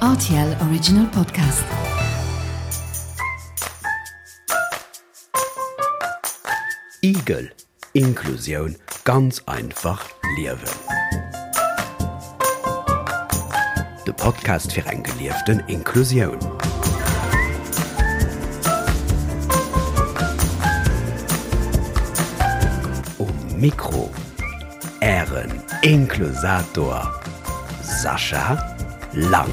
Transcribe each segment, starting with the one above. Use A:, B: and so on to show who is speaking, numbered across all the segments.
A: Rtl Original Podcast.
B: Igel, Inklusioun ganz einfach liewen. De Podcast fir eng gelieften Inklusioun. Um Mikro Ären Inklusator Sascha Lang.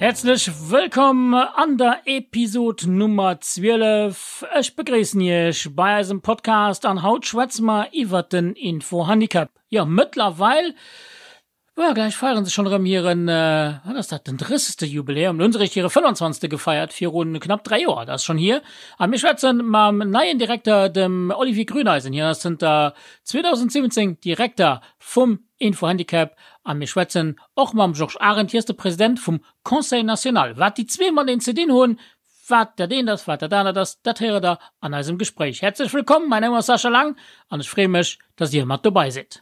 C: Häerzlech wëllkomm an der Episod Nummer 12. Ech begréissen Iech bei eisem Podcast an haut schwätze mer iwwert den Infohandicap. Jo, mëttlerweil Boah, gläich feieren se schonn erëm hiren, wat ass dat, den drëssegste Jubiläum. Lo hunn se eréischt hire 25. gefeiert, viru knapp 3 Joer, dat ass schonn hier. A mir schwätze mam neien Direkter, dem Olivier Grüneisen. Hien ass zënter 2017 Direkter vum Info-Handicap. A mir schwätzen och mam Georges Arendt, hie ass de President vum Conseil national. Wat déi zwee mateneen ze dinn hunn, wat dat eent ass, wat dat anert ass, dat héiert der an eisem Gespréich. Häerzlech wëllkomm, mäin Numm ass Sascha Lang an ech freeë mech, dass dir mat dobei sidd.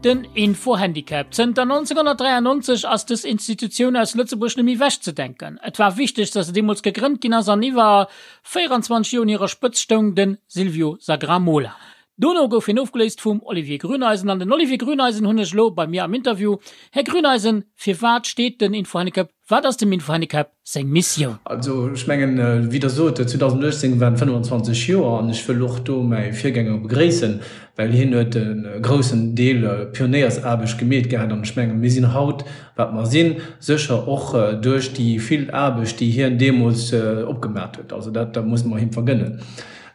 C: Den Info-Handicap. Zënter 1993 ass dës Institutioun aus Lëtzebuerg net méi wechzedenken. Et war wichteg, dass se deemools gegrënnt ginn ass an iwwer 24 Joer un hirer Spëtzt stoung de Silvio Sagramola. Dono gouf hien ofgeléist vum Olivier Grüneisen. An den Olivier Grüneisen hunn ech elo bei mir am Interview. Här Grüneisen, firwat steet den Infohandicap, wat ass dem Infohandicap seng Missioun?
D: Also ech mengen, wéi Der sot, 2018 waren 25 Joer an ech wëll och do mäi Virgänger begréissen, well hien huet e groussen Deel Pionéiersaarbecht gemeet gehat an ech mengen, mir sinn haut, wat mer sinn, sécher och duerch déi vill Aarbecht, déi hien deemools opgemat huet. Also dat muss mer him vergënnen.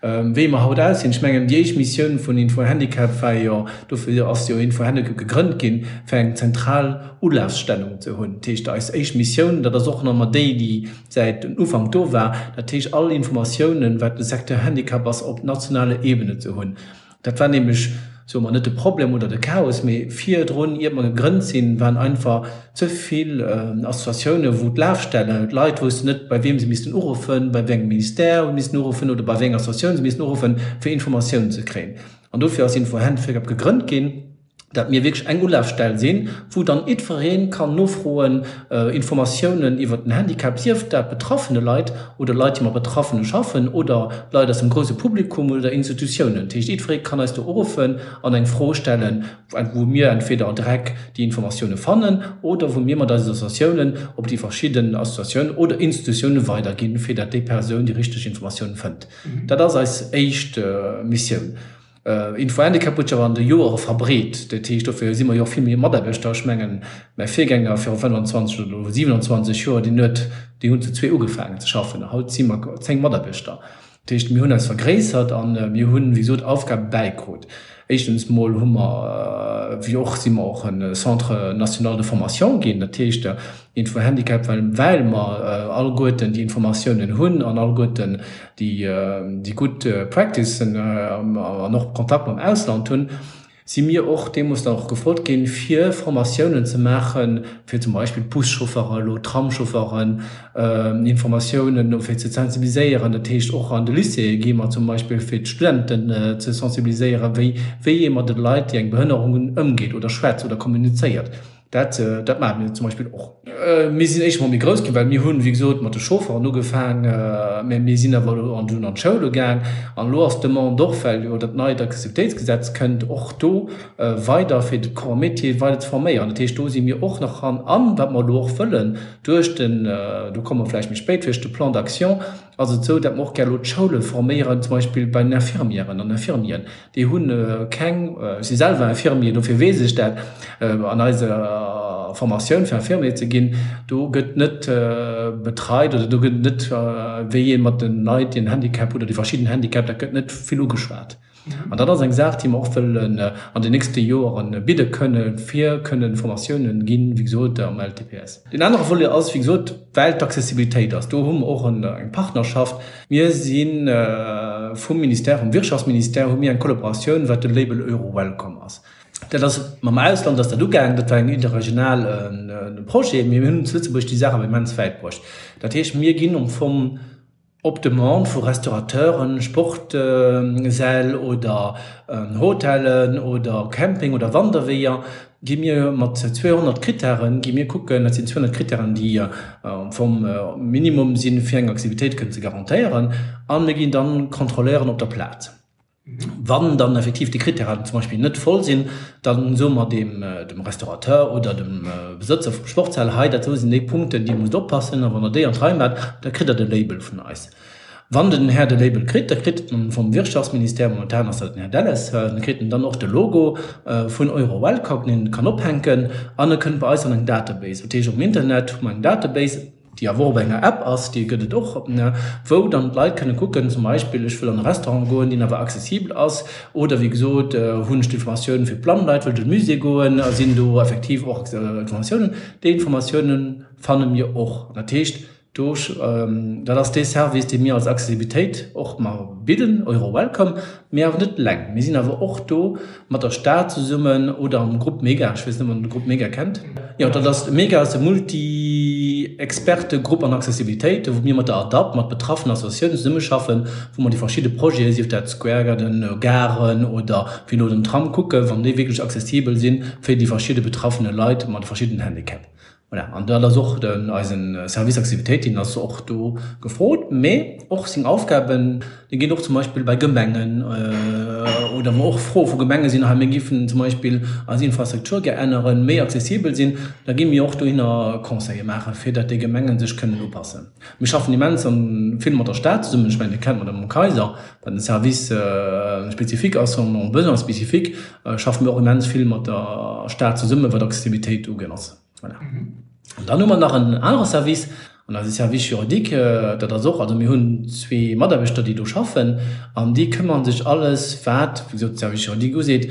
D: Wéi mer haut aussinn, ech mengen, déi éischt Missioun vun Info-Handicap war jo, dofir ass jo Info-Handicap gegrënnt ginn, fir eng zentral Ulafstellung ze hunn. Dat heescht, eis éischt Missioun, dat ass och nach ëmmer déi, déi säit den Ufank do war, dat heescht, all Informatiounen, wat de Secteur Handicap ass, op nationaler Ebene ze hunn. Dat war nämlech, soe mer, net de Problem oder de Chaos, mee virdrun, iert mer gegrënnt sinn, waren einfach ze vill Associatiounen, wou d'Lafstellen, d'Leit woussten net, bei wiem se missten uruffen, bei wéi engem Ministère se missten uruffen oder bei wéi enger Associatioun se missten uruffen, fir Informatiounen ze kréien. An dofir ass Info-Handicap gegrënnt ginn, dat mir wierklech eng Ulafstell sinn, wou dann jiddweree kann nofroen, Informatiounen iwwert den Handicap, sief dat betraffene Leit oder Leit, déi mat Betraffene schaffen oder Leit aus dem grouse Publikum oder Institutiounen. Dat heescht, jiddweree kann eis do uruffen an eng Fro stellen, wou mir entweder direkt déi Informatioune fannen oder wou mir mat eisen Associatiounen op déi verschidden Associatiounen oder Institutioune weiderginn, fir dat déi Persoun déi richteg Informatioun fënnt. Dat ass eis éischt Missioun. Info-Handicap huet sech awer an de Joere verbreet. Dat heescht, dofir si mer jo och vill méi Mataarbechter. Ech mengen, mäi Virgänger viru 25 oder elo 27 Joer, deen huet, déi hunn zu zwee ugefaangen ze schaffen. Haut si mer 10 Mataarbechter. Dat heescht, mir hunn eis vergréissert a mir hunn, wéi gesot, Aufgabe bäikrut. Éischtens mol hu mer, wéi och, si mer och e Centre national de formation ginn. Dat heescht, Info-Handicap, well well mer alleguerten déi Informatiounen hunn an alleguerten déi déi gutt Practicen an och Kontakt mam Ausland hunn, si mir och deemools dann och gefrot ginn, fir Formatiounen ze maachen, fir zum Beispill d'Buschaufferen elo, d'Tramschaufferen, Informatiounen fir ze sensibiliséieren. Dat heescht, och an de Lycéeë gi mer zum Beispill, fir d'Studenten ze sensibiliséieren, wéi wéi ee mat de Leit, déi eng Behënnerung hunn, ëmgeet oder schwätzt oder kommunizéiert. Dat, dat maache mir zum Beispill och. Mir sinn éischt emol méi grouss ginn, well mir hunn, wéi gesot, mat de Chaufferen ugefaang, mä mir sinn awer elo an dunn an d'Schoule gaang. An elo ass d'Demande och, well jo dat neit Accessibilitéitsgesetz kënnt, och do weider fir de Corps métier weider ze forméieren. Dat heescht, do si mir och nach dran. An wat mer elo och wëllen duerch den, do komme mer vläicht méi spéit, duerch de Plan d'action, ass et esou, datt mer och gär elo d'Schoule forméieren, zum Beispill bei den Infirmièren an Infirmieren. Déi hu keng, ech si selwer Infirmier, dofir weess ech dat, an eiser. Formatioun fir Infirmier ze ginn, do gëtt net betreit oder do gëtt net, wéi ee mat de Leit, déi en Handicap hunn oder déi verschidden Handicap, dat gëtt net vill ugeschwat. An dat ass eng Saach, déi mer och wëllen an den nächste Joere bidde kënnen, fir kënnen Formatiounen ginn, wéi gesot, am LTPS. Deen anere Volet ass, wéi gesot, well d'Accessibilitéit ass, do hu mer och eng Partnerschaft. Mir si vum Ministère, vum Wirtschaftsministère hu mir eng Kollaboratioun, wat de Label Euro-Welcome ass. Dat ass mam Ausland ass dat ugaangen, dat war eng interregional Projet, mee mir hunn zu Lëtzebuerg déi Saach awer immens wäit bruecht. Dat heescht, mir ginn am Fong op Demande vu Restaurateuren, Sportsäll oder Hotellen oder Camping oder Wanderweeër, gi mir mat 200 Krittären, gi mir kucken, dat sinn 200 Krittären, déi am Fong Minimum sinn, fir eng Aktivitéit kënnen ze garantéieren, a mir ginn dann kontrolléieren op der Plaz. Wann dann effektiv déi Krittären zum Beispill net voll sinn, da soe mer dem Restaurateur oder dem Besëtzer vum Sportshal, hei dat do sinn déi Punkten, déi musst oppassen a wann der déi an d'Rei maacht, da kritt der de Label vun eis. Wann den Här de Label kritt, da kritt en vum Wirtschaftsministère, momentan ass dat den Här Delles, da kritt en dann och de Logo vun EuroWelcome, deen en kann ophänken an e kënnt bei eis an eng Database. Dat heescht, um Internet hu mer eng Database, déi awer och op enger App ass, déi gëtt et och, wou dann d'Leit kënne kucken, zum Beispill, ech wëll an e Restaurant goen, deen awer accessibel ass, oder wéi gesot, hunn ech d'Informatioun fir d'blann Leit, wëll ech an de Musée goen, sinn do effektiv och Informatiounen. Déi Informatiounen fanne mir och. Dat heescht, Do, dat ass dee Service, dee mir als Accessibilitéit och mar bidden, EuroWelcome, mee awer net eleng. Mir sinn awer och do mat der Stad zesummen oder am Grupp Mega. Ech weess net, ob Der de Grupp Mega kennt. Jo, dat ass, Mega ass de Multi-Experte-Grupp an Accessibilitéit, wou mir mat der ADAPT, mat betraffenen Associatiounen zesummeschaffen, wou mer déi verschidde Projeten, sief dat Square Garden, Garen oder wéi elo den Tram, kucken, wann déi wierklech accessibel sinn fir déi verschidde betraffene Leit mat verschiddenen Handicap. Voilà, an dat ass och den, eisen Service Accessibilitéit, deen ass och do gefrot, mee och seng Aufgaben, déi ginn och zum Beispill bei Gemengen oder wou och Froe vu Gemenge sinn, hei mir giffen zum Beispill eis Infrastruktur gär änneren, méi accessibel sinn, da gi mir och dohinner Conseile maachen, fir datt déi Gemengen sech kënnen upassen. Mir schaffen immens vill mat der Stad zesummen, ech mengen, Dir kennt d'Madame Kayser, wat en Service spécifique ass, en besoins spécifiques, schaffe mir och immens vill mat der Stad zesummen, wat Accessibilitéit ugeet. Voilà. An dann hu mer nach en anere Service, an eise Service juridique, dat ass och, also mir hunn zwee Mataarbechter, déi do schaffen, an déi këmmere sech alles, wat, wéi gesot, de Service juridique useet,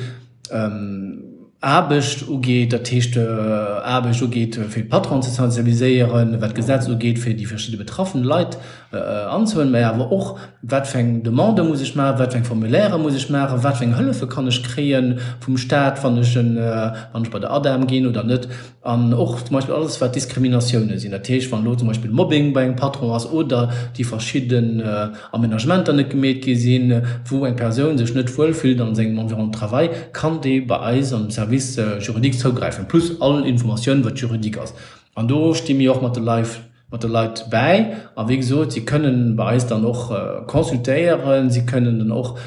D: Aarbecht ugeet, dat heescht Aarbecht ugeet, fir d'Patronen ze sensibiliséieren, wat d'Gesetz ugeet, fir déi verschidde betraffen Leit anzehuelen, mä awer och, wat fir eng Demande muss ech maachen, wat fir eng Formulairë muss ech maachen, wat fir eng Hëllefe kann ech kréie vum Staat, wann ech wann ech bei der ADEM ginn oder net. An och zum Beispill alles, wat Diskriminatioune sinn, dat heescht, wann elo zum Beispill Mobbing bei engem Patron ass oder déi verschidden Amenagementer net gemeet gi sinn, wou eng Persoun sech net wuel fillt an sengem Environnement de travail, kann déi bei eis am Service juridique zougräifen, plus all Informatioun, wat juridique ass. An do sti mir och mat de Leit mat de Leit bäi. A wéi gesot, si kënnen bei eis dann och consultéieren, si kënnen dann och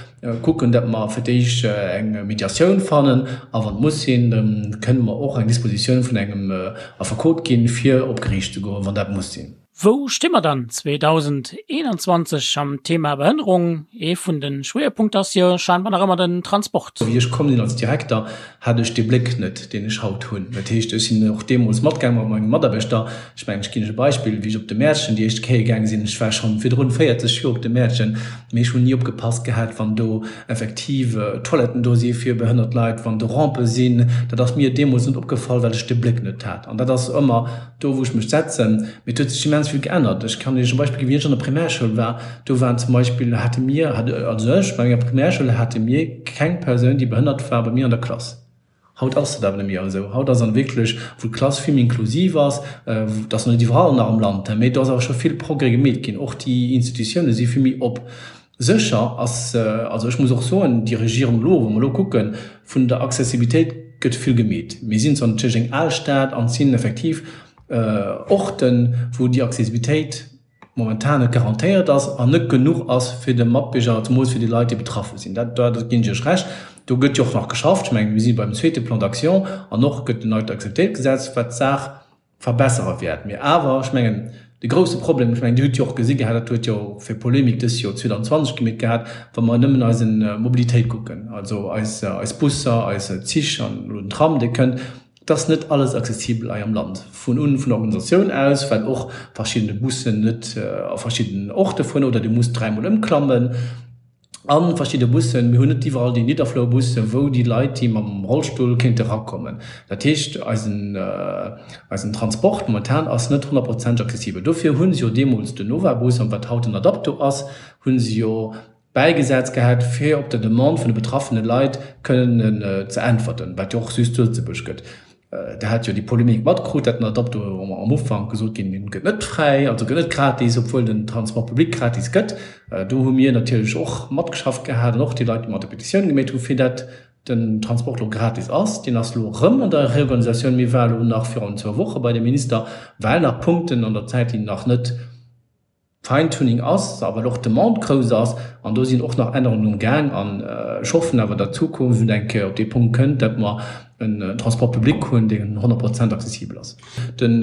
D: kucken, datt mer fir d'éischt eng Mediatioun fannen a wann et muss sinn, da kënnen mer och eng Dispositioun vun engem Affekot ginn, fir op Geriicht ze goen, wann dat muss sinn.
C: Wou sti mer dann 2021 am Thema Behënnerung? Ee vun de Schwéierpunkter ass jo scheinbar nach ëmmer den Transport.
D: Wéi ech komm sinn als Direkter, hat ech dee Bléck net, deen ech haut hunn. Dat heescht, ech sinn och deemools matgaang mat menge Mataarbechter. Ech mengen, ech ginn lech e Beispill, Wéi ech op de Mäertchen déi éischt Kéier gaange sinn, ech war schonn virdrun 40 Joer op de Mäertchen, mee ech hunn ni opgepasst gehat, wann do effektiv Toiletten do si fir behënnert Leit, wann do Rampe sinn. Dat ass mir deemools net opgefall, well ech de Bléck net hat. An dat ass ëmmer do, wou ech mech setzen. Mee et huet sech immens vill geännert. Ech kann Iech e Beispill ginn, Wéi ech an der Primärschoul war, do waren zum Beispill, hate mir, hat, also ech, bei menger Primärschoul hate mir keng Persoun, déi behënnert war, bei mir an der Klass. Haut ass dat awer net méi esou. Haut ass an wierklech, wou d'Klass vill méi inklusiv ass, dat ass nach net iwwerall nach am Land, mee do ass awer scho vill Progrès gemeet ginn. Och déi Institutioune si vill méi op. Sécher ass, also ech muss och soen, déi Regierung elo, wa mer elo kucken, vun der Accessibilitéit gëtt vill gemeet. Mir sinn zwar natierlech eng al Stad an et sinn effektiv Orten, wou déi Accessibilitéit momentan net garantéiert ass an net genuch ass fir de Matbierger, zemools fir déi Leit, déi betraffe sinn. Dat, dat ginn ech Iech Recht. Do gëtt jo och nach geschafft. Ech mengen, mir si beim zweete Plan d'action an och gëtt en neit Accessibilitéitsgesetz, wat d'Saach verbessere wäert. Mee awer, ech mengen, de grouse Problem, ech mengen, Dir hutt jo och gesi gehat, dat huet jo och fir Polemik dës Joer 2020 gemeet gehat, wa mer nëmmen eise Mobilitéit kucken, also eis, eis Busser, eis Zich an elo den Tram, dee kënnt. Et ass net alles accessibel hei am Land, vun un vun der Organisatioun aus, well och verschiddene Bussen net a verschiddenen Orte fueren oder Dir musst dräimol ëmklammen a verschidde Bussen. Mir hunn net iwwerall déi Nidderflourbussen, wou déi Leit, déi mam Rollstull kéinte rakommen. Dat heescht, eisen, eisen Transport momentan ass net honnertprozenteg accessibel. Dofir hu se jo deemools den Novabus, an wat haut den Adapto ass, hu se jo bäigesat gehat, fir op der Demande vun de betraffene Leit kënnen ze äntwerten, wat jo och just zu Lëtzebuerg gëtt. Der hat jo déi Polemik matkrut, dat den Adapto am Ufank gesot ginn, deen gëtt net fräi, also gëtt net gratis, obwuel den Transport public gratis gëtt. Do hu mir natierlech och matgeschafft gehat an och déi Leit, déi mat der Petitioun gemeet hu fir dat den Transport elo gratis ass. Deen ass elo erëm an der Reorganisatioun. Mir ware elo nach virun zwou Woche bei dem Minister, well nach Punkten an der Zäit, déi nach net, Fine-Tuning ass, a well och d'Demande grouss ass, an do sinn och nach Ännerungen um Gaang. An ech hoffen awer, datt d'Zukunft eng Kéier op dee Punkt kënnt, datt mer en Transport public hunn, deen 100 Prozent accessibel ass. Den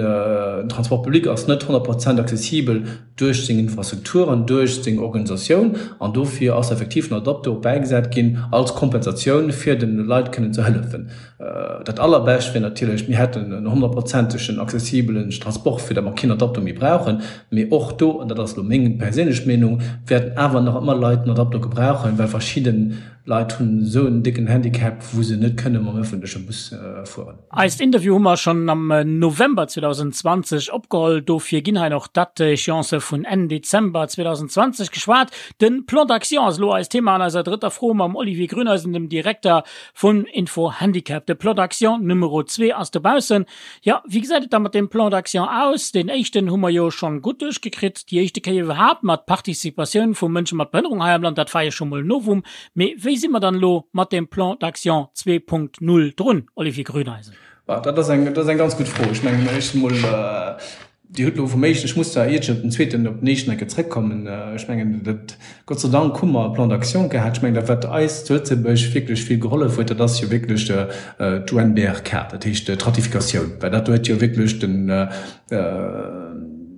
D: Transport public ass net 100 Prozent accessibel duerch seng Infrastrukturen, duerch seng Organisatioun, an dofir ass effektiv den Adapto bäigesat ginn als Kompensatioun, fir de Leit kënnen ze hëllefen. Dat allerbescht wier natierlech, mir hätten en honnertprozentegen accessibelen Transport, fir datt mer keen Adapto méi brauchen. Mee och do, an dat ass elo meng perséinlech Meenung, wäerten awer nach ëmmer Leit en Adapto gebrauchen, well verschidde Leit hunn esou en décken Handicap, wou se net kënne mam ëffentleche Bus fueren.
C: Eist Interview hu mer schonn am November 2020 opgeholl, dofir ginn hei nach d'Date-échéancë vun Enn Dezember 2020 geschwat. De Plan d'action ass elo eist Thema an eiser drëtter Fro mam Olivier Grüneisen, dem Direkter Vun Info Handicap. De Plan d'action Numero 2 ass dobaussen. Jo, wéi gesäit et da mat deem Plan d'action aus? Deen éischten hu mer jo schonn gutt duerchgekritt, déi éischte Kéier iwwerhaapt mat Participatioun vu Mënsche mat Behënnerung hei am Land, dat war jo scho mol e Novum. Mee wéi si mer dann elo mat deem Plan d'action 2.0 drun, Olivier Grüneisen?
D: Dat ass eng, dat ass eng ganz gutt Fro. Ech mengen, éischt emol, Dir hutt elo vum éischten, ech muss zwar iert ech op den zweeten, op den éischten eng Kéier zrëckkommen, ech mengen, dat, Gott sei Dank hu mer e Plan d'action gehat. Ech mengen, dat wat eis zu Lëtzebuerg wierklech vill gehollef huet, dat ass jo wierklech d'UNBRK, dat heescht d'Ratifikatioun, well dat huet jo wierklech den,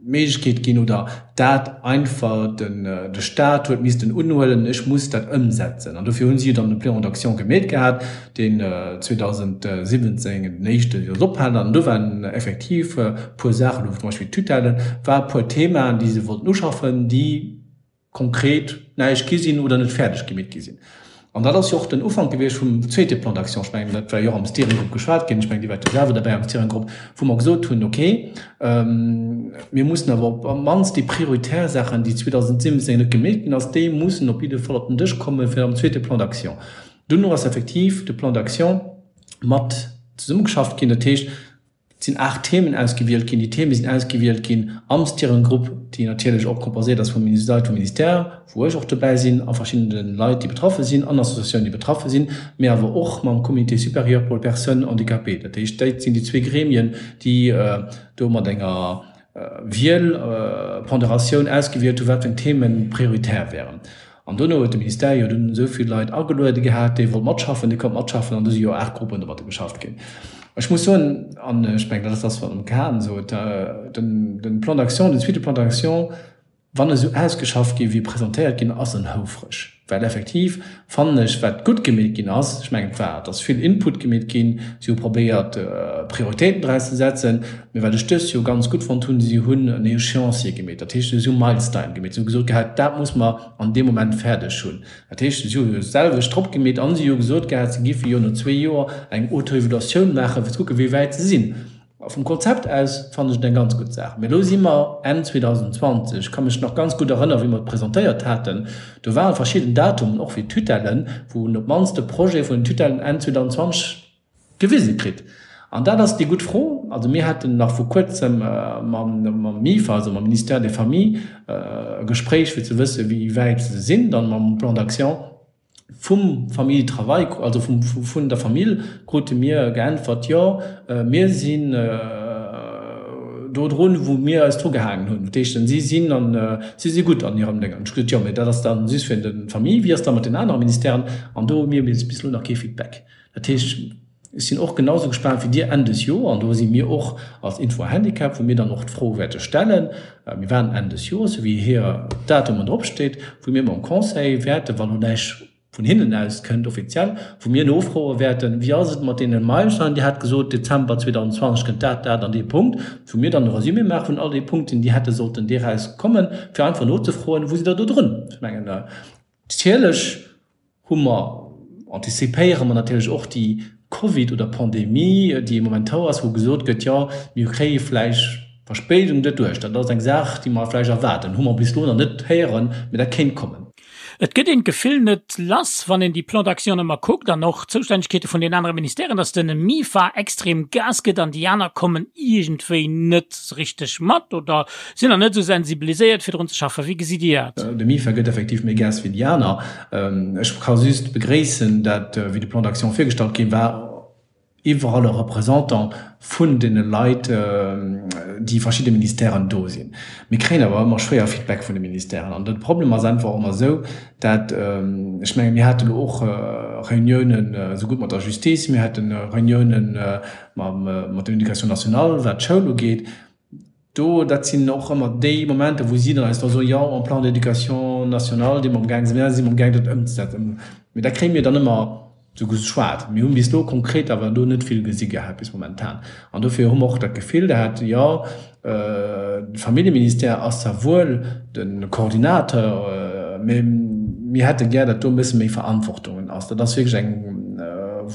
D: d'Méiglechkeet ginn oder dat einfach den, de Stat huet missten unhuelen, ech muss dat ëmsetzen. An dofir hu si jo dann de Plan d'action gemeet gehat. deen 2017 den éischte jo ophalen an do waren effektiv e puer Saachen, do zum Beispill d'Tutelle war e puer Themaen, déi se wollten uschaffen, déi konkret näischt gi sinn oder net fäerdeg gemeet gi sinn. An dat ass jo och den Ufank gewiescht vum zweete Plan d'action. Ech mengen, dat war jo och am Steering Group geschwat ginn, ech mengen, Dir waart jo selwer derbäi am Steering Group, wou mer gesot hunn, okay, mir mussen awer op d'mannst déi prioritär Saachen, déi 2017 net gemeet ginn ass, déi mussen op jidde Fall op den Dësch komme fir am zweete Plan d'action. Duerno ass effektiv de Plan d'action mat zesummegeschafft ginn. Dat heescht, et sinn 8 Themen ausgewielt ginn. Déi Theme sinn ausgewielt ginn am Steering Group, déi natierlech och composéiert ass vum Leit vum Ministère, wou ech och dobäi sinn, a verschiddene Leit, déi betraffe sinn, an Associatiounen, déi betraffe sinn, mee awer och mam Comité supérieur pour les personnes handicapées. Dat heescht, dat sinn déi zwee Gremien, déi do mat enger Wiel, Ponderatioun ausgewielt hu wat fir eng Themen prioritär wären. An dono huet de Ministère jo dunn esou vill Leit ageluede gehat, déi wollt matschaffen, déi konnt matschaffen, an du si jo 8 Gruppen domatter geschafft ginn. Ech muss soen, an ech mengen, dat ass dat, wat d'Mme Cahen sot, den, den Plan d'action, den zweete Plan d'action, wann e sou ausgeschafft gi wéi e presentéiert ginn ass, en houfreg. Well effektiv fannen ech, wat gutt gemeet ginn ass, ech mengen, et war, et ass vill Input gemeet ginn, si hu probéiert, Prioritéiten draus ze setzen, mee wat ech dëst Joer ganz gutt fonnt hunn, si hunn en Échéancier gemeet, dat heescht, si hu Milestine gemeet, si hu gesot gehat, dat muss mer an deem Moment fäerdeg hunn. Dat heescht, si hu jo d'selwecht drop gemeet an si hu gesot gehat, si giffe jo no zwee Joer eng Autoevaluatioun maachen, fir ze kucken, wéi wäit se sinn. A vum Konzept aus fannen ech et eng ganz gutt Saach. Mee elo si mer Enn 2020. Ech ka mech nach ganz gutt erënneren, wéi mer et presentéiert haten. Do ware verschidden Datumen, och fir d'Tutellen, wou een op d'mannst de Projet vun den Tutellen Enn 2020 gewise kritt. An dat ass déi gutt Fro. Also mir haten nach vor kuerzem mam MIFA, also mam Ministère des Familles, e Gespréich, fir ze wëssen, wéi wäit se sinn dann mam Plan d'action vum Famille Travail, also vun der Famill krute mir geäntwert, jo, mir sinn do drun, wou mir eis dru gehaangen hunn. Dat heescht, si sinn an, si si gutt an hirem Déngen. Ech hu gesot, jo, mee dat ass dann just fir de Famille, wéi ass da mat den anere Ministèren? An do hu mir bis elo nach kee Feedback. Dat heescht, ech sinn och genau sou gespaant wéi Dir Enn des Joer, an do si mir och als Info Handicap, wou mir dann och d'Fro wäerte stellen, mir waarden Enn des Joers, sou wéi hir Datumen dropsteet, wou mir mam Conseil wäerten, wann elo näischt. vun hinnen aus kënnt, offiziell, wou mir nofroe wäerten, Wéi ass et mat deene Meilensteinen? Dir hat gesot, Dezember 2020 kënnt dat, dat an dee Punkt, wou mir dann e Resumé maache vun all de Punkten, déi hätte sollten deraus kommen, fir einfach nozefroen, Wou sidd Der do drun? Ech mengen, natierlech hu mer, antizipéiere mer natierlech och déi Covid oder Pandemie, déi momentan ass, wou gesot gëtt, jo, mir kréie vläicht Verspéidung doduerch. Dat ass eng Saach, déi mer vläicht erwaarden. Hu mer bis elo nach net héieren, mä dat kéint kommen.
C: Et gëtt een d'Gefill net lass, wann een déi Plans d'action ëmmer kuckt an och d'Zoustännegkeete vun den anere Ministèren, datt den MIFA extrem Gas gëtt an déi aner kommen iergendwéi net richteg mat oder sinn nach net esou sensibiliséiert fir drun ze schaffen. Wéi gesitt Dir dat?
D: De MIFA gëtt effektiv méi Gas wéi déi aner. Ech ka just begréissen, dat wéi de Plan d'action virgestallt gi war, iwwerall e Représentant vun deene Leit, déi verschidde Ministèren do sinn. Mir kréien awer ëmmer schwéier Feedback vun de Ministèren. An de Problem ass einfach ëmmer esou, dat, ech menge mir hate lo och Reuniounen esougutt mat der Justice, mir hate Reuniounen mat der Éducation nationale, wat d'Schoul ugeet, Do, dat sinn och ëmmer déi Momenter, wou si dann eis da soen, jo, en Plan d'éducation nationale, dee mer amgaang sinn, si mer amgaang dat ëmzesetzen. Mee dat kréie mir dann ëmmer esou geschwat. Mir hunn bis elo konkret awer do net vill gesi gehat bis momentan. An dofir hu mer och dat Gefill gehat, jo, de Familljeministère ass zwar wuel de Coordinateur, mee mir hätte gär, datt do e bësse méi Verantwortung ass. Dat ass wierklech eng,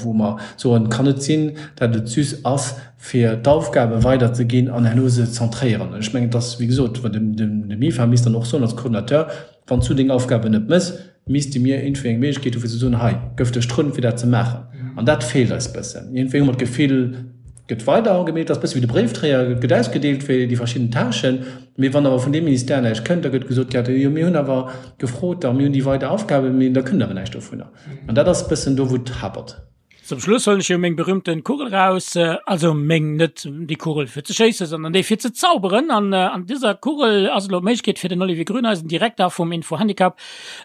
D: wou mer soen, et kann net sinn, datt et just ass, fir d'Aufgabe weiderzeginn an herno se zentréieren. Ech mengen, et ass, wéi gesot, de MIFA misst dann och soen als Coordinateur, Wann s du deng Aufgaben net méchs, misste mir iergendwéi eng Méiglechkeet hu fir ze soen, hei gëff dech drun, fir dat ze maachen. An dat feelt eis bëssen. Iergendwéi hu mer d'Gefill, et gëtt weider gemeet, et ass bësse wéi de Bréifdréier, et gëtt ausgedeelt fir déi verschidden Tâchen, mee wann awer vun deem Ministère näischt kënnt, da gëtt gesot, jo mir hunn awer gefrot a mir hunn déi weider Aufgaben, mee da kënnt awer näischt dovunner. An dat ass bëssen do, wou et hapert.
C: Zum Schluss huelen ech jo meng berühmten Kugel raus, also meng, net déi Kugel fir ze schéissen, sondern déi fir ze zauberen. An an dëser Kugel ass elo d'Méiglechkeet fir den Olivier Grüneisen, Direkter vum Info-Handicap,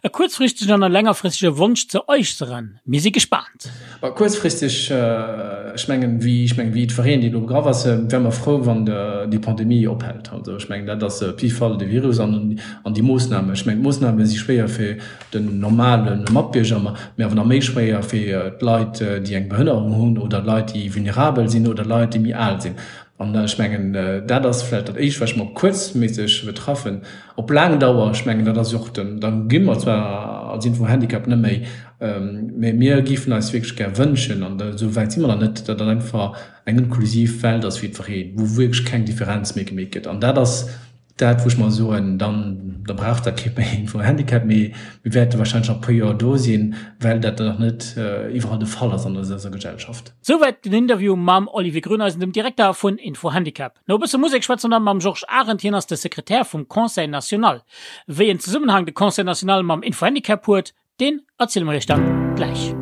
C: e kuerzfristegen an e längerfristege Wonsch ze äusseren. Mir si gespaant.
D: Bah, kuerzfristeg, ech mengen, wéi, ech mengen, wéi jiddwereen, dee elo begraff ass, wäre mer frou, wann déi Pandemie ophält. Also ech mengen, dat ass op jidde Fall de Virus an an déi Moossnamen. Ech mengen, d'Moossname si schwéier fir den normale Matbierger, mee awer nach méi schwéier fir d'Leit, déi eng Behënnerung hunn oder Leit, déi vulnerabel sinn oder Leit, déi méi al sinn. An ech mengen, dat ass vläicht dat Éischt, wat ech mer kuerzméisseg betraffen. Op laang Dauer, ech mengen, dat ass jo och den, da gi mer zwar als Info-Handicap net méi, mee mir géifen eis wierklech gär wënschen, an esou wäit si mer nach net, datt dat einfach eng inklusiv Welt ass fir jiddwereen, wou wierklech keng Differenz méi gemeet gëtt. An dat ass Dat, wou ech mer soen, dann, da brauch dat kee méi en Handicap, mee mir wäerte wahrscheinlech nach e puer Joer do sinn, well dat nach net iwwerall de Fall ass an eiser Gesellschaft.
C: Souwäit den Interview mam Olivier Grüneisen, dem Direkter vun Info-Handicap. No e bësse Musek schwätze mer dann mam Georges Arendt, hien ass de Sekretär vum Conseil national. Wéi en Zesummenhang de Conseil national mam Info-Handicap huet, Deen erziele mer iech dann gläich.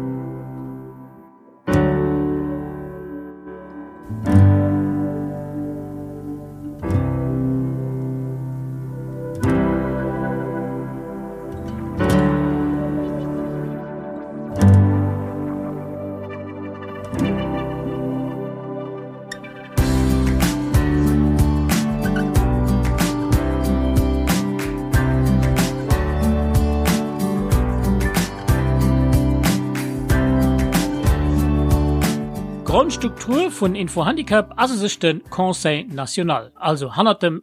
C: D'Grondstruktur vun Info-Handicap ass u sech de Conseil national, also hannert dem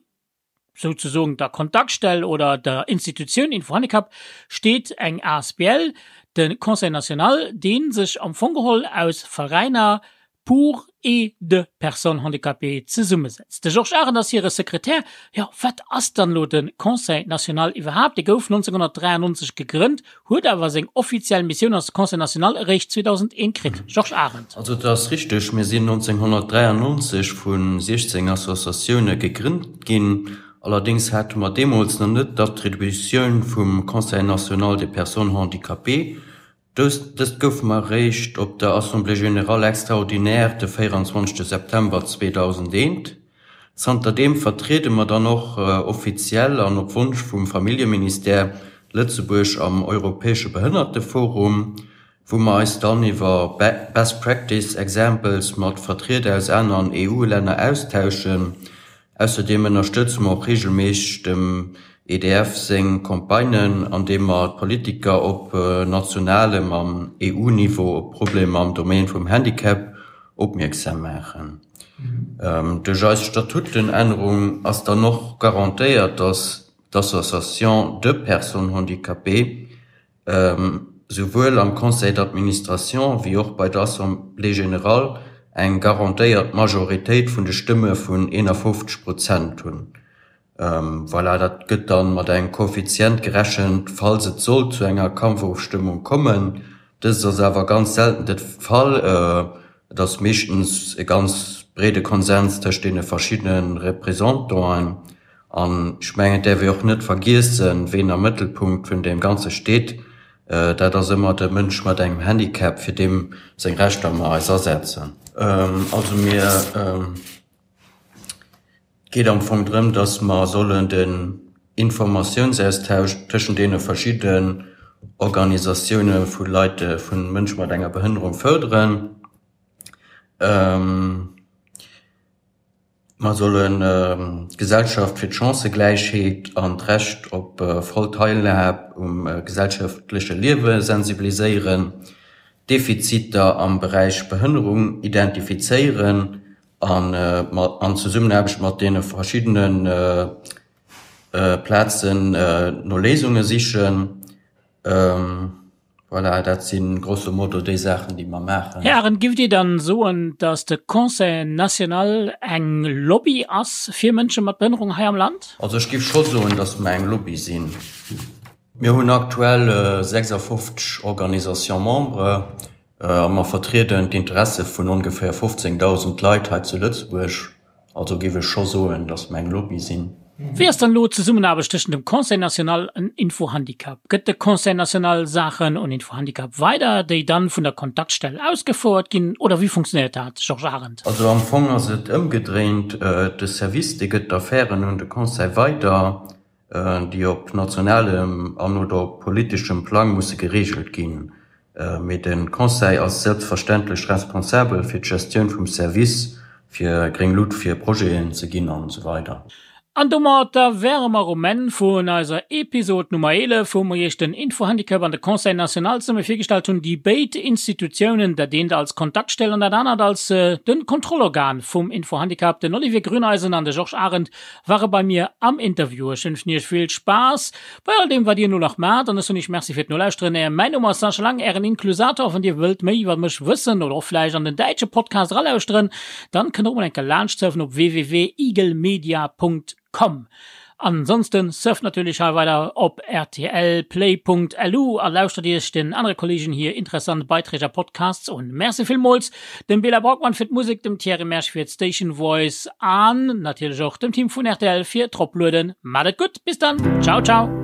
C: souzesoen der Kontaktstell oder der Institutioun Info-Handicap steet eng asbl, de Conseil national, dee sech am Fong geholl aus Veräiner, pour et de personnes handicapées zesummesetzt. De Georges Arendt ass hire Sekretär. Jo, wat ass dann elo de Conseil national iwwerhaapt? Dee gouf 1993 gegrënnt, huet awer seng offiziell Missioun als Conseil national eréischt 2001 kritt. Georges Arendt.
E: Also et ass richteg, mir sinn 1993 vu 16 Associatioune gegrënnt ginn. Allerdéngs hate mer deemools nach net d'Attributioun vum Conseil national des personnes handicapées. Dëst gouf mer eréischt op der Assemblée générale extraordinaire de 24 September 2001. Zanterdeem vertriede mer dann och offiziell an op Wonsch vum Familljeministère Lëtzebuerg am Europäesche Behënnerteforum, wou mer eis dann iwwer Best Practice Examples mat Vertrieder aus aneren EU-Länner austauschen. Ausserdeem ënnerstëtze mer och reegelméisseg dem. EDF seng Campagnen, an deem mer d'Politiker op nationalem an EU-Niveau op d'Problemer am Domaine vum Handicap opmierksam maachen. Duerch eis Statutenännerung ass dann och garantéiert, dass d'Association de personnes handicapées souwuel am Conseil d'administration wéi och bei der Assemblée générale eng garantéiert Majoritéit vun de Stëmme vun 51 Prozent hunn. Voilà, dat gëtt dann mat engem Koeffizient gerechent, falls et sollt zu enger Kampfofstëmmung kommen. Dëst ass awer ganz selten de Fall. Et ass meeschtens e ganz breede Konsens tëscht deene verschiddene Représentanten. An ech mengen, et däerf ee och net vergiessen, ween am Mëttelpunkt vun deem Ganze steet. Dat ass ëmmer de Mënsch mat engem Handicap, fir deem seng Rechter mer eis asetzen. Also mir. Et geet am Fong drëm, dass mer sollen den Informatiounsaustausch tëschent deene verschidden Organisatioune vu Leit, vu Mënsche mat enger Behënnerung fërderen. Mer sollen d'Gesellschaft fir d'Chancëgläichheet an d'Recht op voll Teilhab um gesellschaftleche Liewe sensibiliséieren, Defiziter am Beräich Behënnerung identifizéieren an an Zesummenaarbecht mat deene verschiddene Plazen no Léisunge sichen. Voilà, dat si grosso modo déi Saachen, déi mer maachen.
C: Här Arendt, giff Dir dann soen, datt de Conseil national eng Lobby ass fir Mënsche mat Behënnerung hei am Land?
E: Also ech giff scho soen, datt mer eng Lobby sinn. Mir hunn aktuell 56 Organisations membres. A mer vertrieden d'Interesse vun ongeféier 15.000 Leit hei zu Lëtzebuerg. Also géif ech scho soen, datt mer eng Lobby sinn.
C: Wéi ass dann elo d'Zesummenaarbecht tëschent dem Conseil national an Info-Handicap? Gëtt de Conseil national Saachen un Info-Handicap weider, déi dann vun der Kontaktstell ausgefouert ginn, oder wéi funktionéiert dat, Georges Arendt?
E: Also am Fong ass et ëmgedréint, De Service, dee gëtt d'Affären un de Conseil weider. déi op nationalem an oder op politeschem Plang musse gereegelt ginn. Mee de Conseil ass selbstverständlech responsabel fir d'Gestioun vum Service, fir gréng Lut fir Projeten ze ginn an esou weider.
C: An domatter wäre mer um Enn vun eiser Episod Nummer 11, wou mer Iech den Infohandicap an de Conseil national zesumme virgestallt hunn, déi béid Institutiounen, dat eent als Kontaktstell an dat anert als de Kontrollorgan vum Infohandicap. Den Olivier Grüneisen an de Georges Arendt Ware bei mir am Interview. Ech wënschen iech vill Spaass bei all deem wat dir elo nach maacht an ech soen iech Merci fir d'Nolauschteren. Mäin Numm ass Sascha Lang, ären Inklusator. Wann dir wëllt méi iwwer mech wëssen oder och vläicht an den däitsche Podcast eralauschteren, dann kënnt der och mol eng Kéier laanscht surfen op www.igelmedia.com. Ansonsten surft natierlech hei weider op rtlplay.lu a lauschtert iech den anere Kollegen hir interessant Beiträg a Podcasts un. Merci villmools dem Bela Braukmann fir d'Musek, dem Thierry Mersch fir d'Station Voice an natierlech och dem Team vun rtl fir d'Roplueden. Maat et gutt, bis dann, ciao ciao!